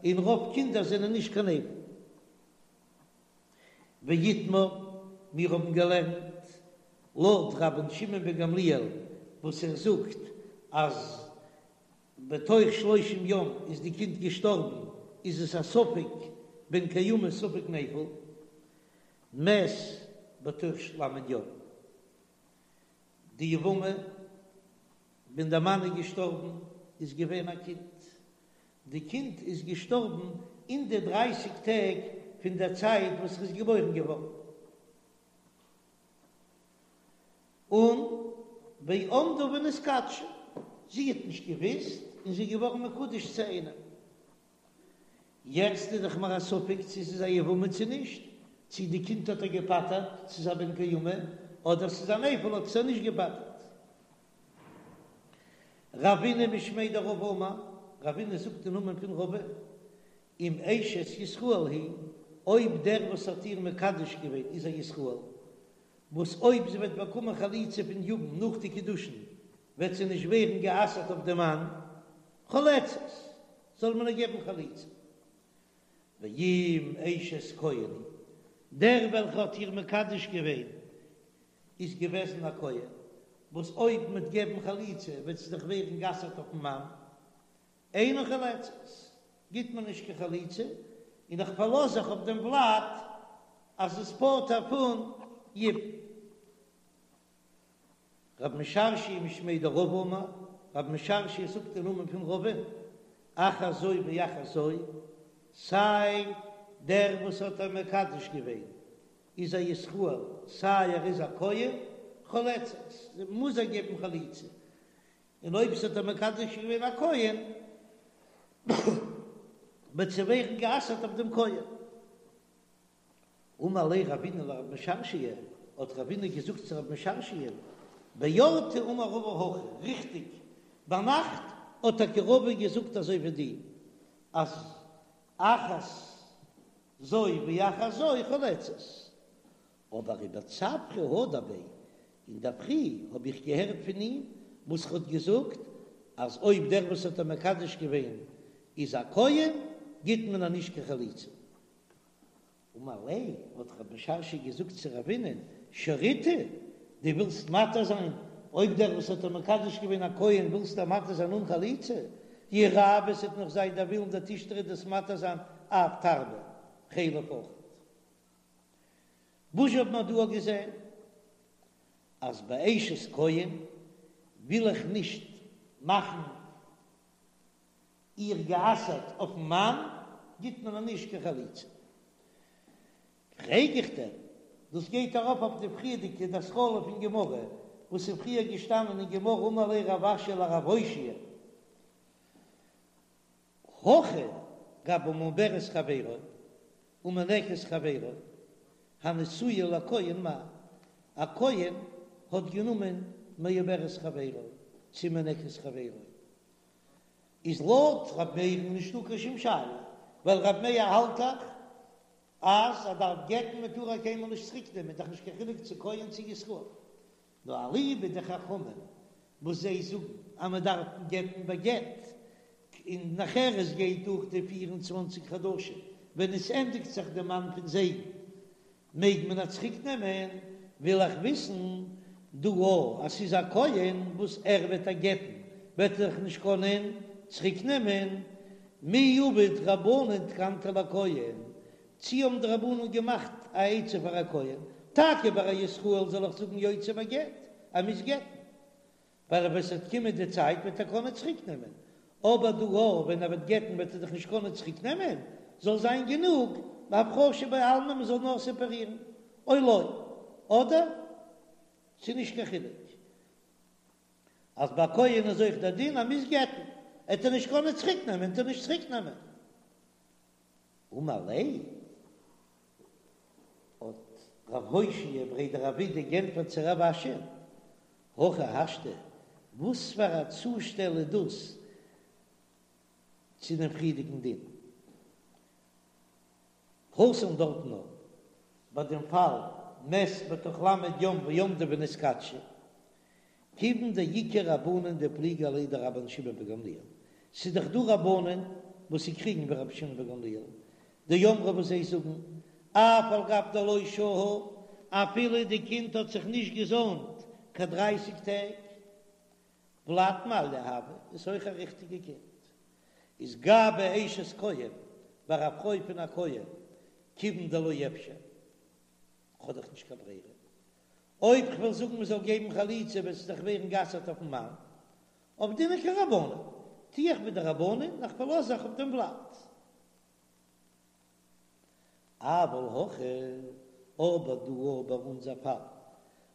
און רוב קינדער זענען נישט קיין נפל. ואיתמר, מיר האבן געלערנט לויט רבן שמעון בן גמליאל וואס ער זאגט אז בתוך שלושים יום איז די קינד געשטארבן איז עס א ספק בן קיימא ספק נפל, מת בתוך ל' יום. די יבמה ווען דער מאן איז געשטארבן איז געווען א קינד, די קינד איז געשטארבן אין די דרייסיג טעג פון דער צייט וואס ער איז געבוירן געווארן, און ועמדה ונתקדשה, זי האט נישט געוויסט און זי איז געווארן מקודש צו איינעם. יעצט איז דאך מיר א ספק צו ס'איז א יבמה צו נישט, צו די קינד האט ער געפטר'ט, ס'איז א בן קיימא, אדער ס'איז א נפל האט עס ער נישט געפטר'ט. רבינא משמיה דרבא אמר, רבינא זאגט אין נאמען פון רבא, אם אשת ישראל היא, אויב דער וואס האט איר מקדש געווען איז א ישראל, וואס אויב זי וועט באקומען חליצה פון יבם נאך די קידושין וועט זי נישט ווערן גע'אסר'ט אויף דעם מאן, חולצת, זאל מען איר געבן חליצה. ואם אשת כהן היא, דער וועלכער האט איר מקדש געווען איז געוועזן א כהן, וואס אויב מ'וועט געבן חליצה וועט זי דאך ווערן גע'אסר'ט אויפן מאן, אינה חולצת, גיט מען נישט קיין חליצה, און איך פארלאז זיך אויף דעם ולד אז עס פטר'ט פון יבום. רב משרשיא משמיה דרבא אמר, רב משרשיא זאגט אין נאמען פון רבא'ן, אחת זו ואחת זו, סיי דער וואס האט איר מקדש געווען איז א ישראל, סיי ער איז א כהן, חולצת, מוז ער געבן חליצה, און אויב ס'האט איר מקדש געווען א כהן, וועט זי ווערן גע'אסר'ט אויף דעם כהן. אמר ליה רבינא לרב משרשיא, האט רבינא געזאגט צו רב משרשיא, באורתא אמר רבא הכי, ריכטיג, ביינאכט האט טאקע רבא געזאגט אזוי ווי דיר, אז אחת זו ואחת זו חולצת. אבער ובצפרא הדר ביה, אינדערפרי האב איך געהערט פון אים וואס ער האט געזאגט אז אויב דער וואס האט איר מקדש געווען איז א כהן גיט מען איר נישט קיין חליצה. אמר ליה, האט רב משרשיא געזאגט צו רבינ'ען, שריתו, דו ווילסט מתיר זיין אויב דער וואס האט איר מקדש געווען א כהן ווילסטו איר מתיר זיין אן חליצה? יהא רעוא עס וועט נאך זיין דער ווילן דתשתרי דו'סט מתיר זיין אף תרבה חלב אויכעט. וואס האט מען דא געזען? אז ביי אשת כהן וויל איך נישט מאכן איר גע'אסר'ט אויפן מאן, גיט מען איר נישט קיין חליצה. פרעג איך דיר, דאס גייט ארויף אויף די פריערדיגע די התחלה פון גמרא, וואס איז פריער געשטאנען אין גמרא אמר ליה רב אשי לרב הושעיא, הכא גבי מעוברת חברו ומינקת חברו הנשואה לכהן מאי, א כהן האט גענומען מעוברת חברו צו מינקת חברו, איז לויט ר' מאיר'ן נישטא קיין שום שאלה, ווייל ר' מאיר האלט דאך אז ער דארף גט'ן מען טאר איר קיינמאל נישט צוריק נעמען, דאך נישט קיין חילוק צו כהן צו ישראל. נאר אליבא דחכמים וואס זיי זאגן אז מען דארף גט'ן בגט, און נאכער עס גייט דורך די פיר און צוואנציג חדשים ווען עס ענדיגט זיך די זמן פון זייגן מעג מען איר צוריק נעמען, וויל איך וויסן דא אז ס'איז א כהן וואס ער וועט איר גט'ן וועט ער דאך נישט קענען צוריק נעמען, מי עבוד רבנן תקנתא לכהן, צי האבן די רבנן געמאכט א עצה פאר א כהן, טאקע ביי א ישראל זאל איך זאגן יוציא בגט, ער מוז גט'ן, ווייל אויב עס וועט קומען די צייט וועט ער קענען צוריק נעמען, אבער דא ווען ער וועט גט'ן וועט ער דאך נישט קענען צוריק נעמען, זאל זיין גענוג בהפרשה בעלמא מען זאל נאר סעפערירן, או לא, אדער ס'איז נישט קיין חילוק אז ביי כהן איז אויך דער דין אז מ'מוז גט'ן, עט ער נישט קענען צוריק נעמען, עט ער נישט צוריק נעמען. אמר ליה, האט רב הושעיא בריה דרב אידי גענטפערט צו רב אשי, הכי השתא, וואס פאר א צושטעל איז דאס צו דעם פריערדיגן דין? התם דארטן נאר ביי דעם פאל מת בתוך ל' יום ועמדו ונתקדשו, כיוון דאיכא רבנן דפליגי עליה דרבן שמעון בן גמליאל, ס'איז דאך דא רבנן וואס זיי קריגן ווי רבי שמעון בן גמליאל, דאמרי וואס זיי זאגן, אף על גב דלא שהא, אפילו די קינד האט זיך נישט געזוימט קיין דרייסיג טעג, ולד מעליא הוי, איז אויך א ריכטיגע קינד, איז גבי אשת כהן, ביי א פרוי פון א כהן, כיוון דלא אפשר, כ'האב דאך נישט קיין ברירה, אויב כ'וועל זאגן מ'זאל געבן חליצה וועט זי דאך ווערן גע'אסר'ט אויפ'ן מאן, עבדינן כרבנן, טו איך ווי די רבנן און איך פארלאז זיך אויף דעם ולד. אבל הכא, אבער דא ביי אונזער פאל,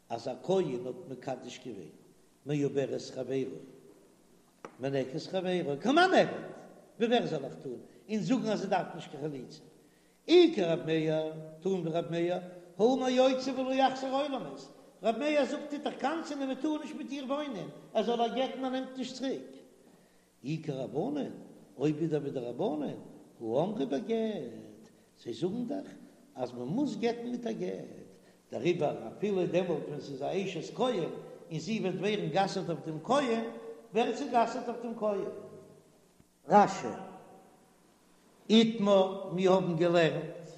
אז א כהן האט מקדש געווען מעוברת חברו, מינקת חברו, כמאן נעביד, ווי ווער זאל איך טון און זאגן אז זי דארף נישט קיין חליצה? אי כרב מאיר, טון ווי רב מאיר, האמר יוציא ולא יחזיר עולמית, רב מאיר זאגט טוט דאך קנס'ענען און מען טאר נישט מיט איר וואוינען, ער זאל איר גט'ן ער נעמט נישט צוריק. אי כרבנן, אויב ווידער ווי די רבנן, הא אמרי בגט, זיי זאגן דאך אז מען מוז גט'ן מיט א גט, דעריבער אפילו דעמאלט ווען ס'איז א אשת כהן און זי וועט ווערן גע'אסר'ט אויף דעם כהן, ווערט זי גע'אסר'ט אויף דעם כהן. רש"י, איתמר, מיר האבן געלערנט,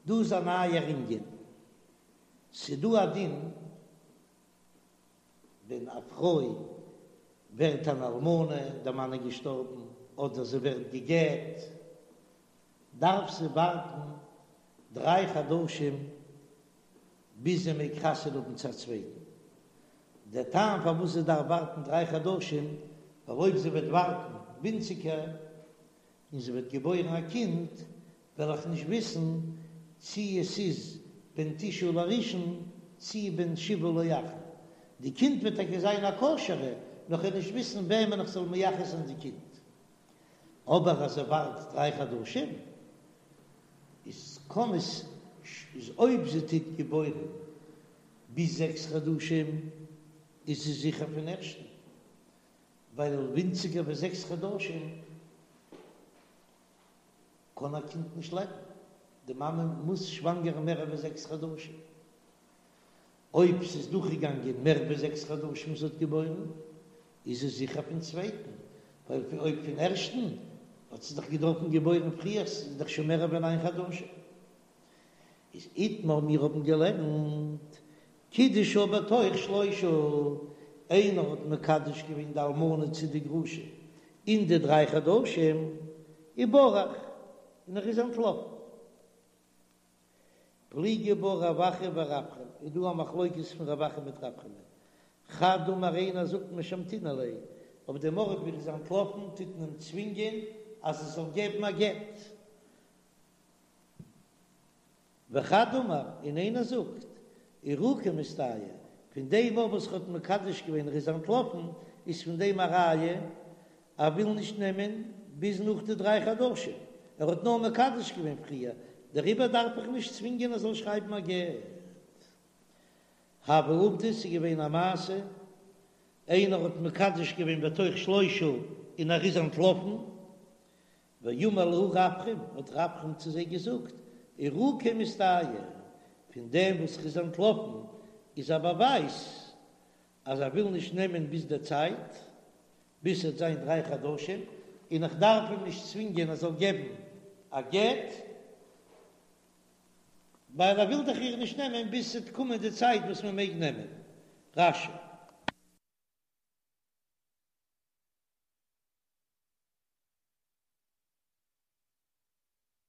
דא איז א נייער ענין, ס'דא א דין ווען א פרוי ווערט אן אלמנה, דער מאן איז געשטארבן, אדער זי ווערט גע'גט, דארף זי ווארטן דריי חדשים ביז זי מעג חתונה האבן צו א צווייטן. דער טעם פארוואס זי דארף ווארטן דריי חדשים, ווייל אויב זי וועט ווארטן ווינציגער און זי וועט געבוירן א קינד, וועל איך נישט וויסן צי עס איז בן תשעה לראשון צי בן שבעה לאחרון. די קינד וועט טאקע זיין א כשר'ע, נאר כ'וועל נישט וויסן וועמען איך זאל מייחס זיין די קינד. אבער אז זי ווארט דריי חדשים, איז קען עס איז אויב זי טוט געבוירן ביז זעקס חדשים איז זי זיכער פון ערשטן, ווייל ווינציגער ווי זעקס חדשים קען א קינד נישט לעבן, די מאמע מוז שוואנגערן מער ווי זעקס חדשים. אויב ס'איז דורכגעגאנגען מער ווי זעקס חדשים זי האט געבוירן, איז עס זיכער פון צווייטן, ווייל אויב פון ערשטן האט זי דאך געדארפן געבוירן פריער, ס'איז דאך שוין מער ווי ניין חדשים. איז איתמר מיר האבן געלערנט קידשה בתוך שלושה, איינער האט מקדש געווען די אלמנה צו די גרושה אין די דריי חדשים, וברח, און ער איז אנטלאפן. פליגי בה רב אחא ורפרם, איז דא א מחלוקת פון רב אחא מיט רפרם. חד אמר איינער זאגט משמתינן ליה, אויף דעם ארט ווי ער איז אנטלאפן טוט מען אים צווינגען אז ער זאל געבן א גט. וחד אמר, און איינער זאגט, עירוקיה מסתייע, פון דעם אויף וואס ער האט מקדש געווען ער איז אנטלאפן, איז פון דעם א ראיה ער וויל נישט נעמען ביז נאך די דריי חדשים, ער האט נאר מקדש געווען פריער, דעריבער דארף איך נישט צווינגען ער זאל שרייבן א גט. הוה עובדא, ס'איז געווען א מעשה, איינער האט מקדש געווען בתוך שלושה און ער איז אנטלאפן, ואמר להו רפרם, האט רפרם צו זיי געזאגט, עירוקיה מסתייע, פון דעם וואס ער איז אנטלאפן איז א באווייז אז ער וויל נישט נעמען ביז דער צייט, ביז ס'וועט זיין דריי חדשים, און איך דארף אים נישט צווינגען ער זאל געבן א גט, ווייל ער וויל דאך איר נישט נעמען ביז ס'וועט קומען די צייט וואס מען מעג נעמען. רש"י.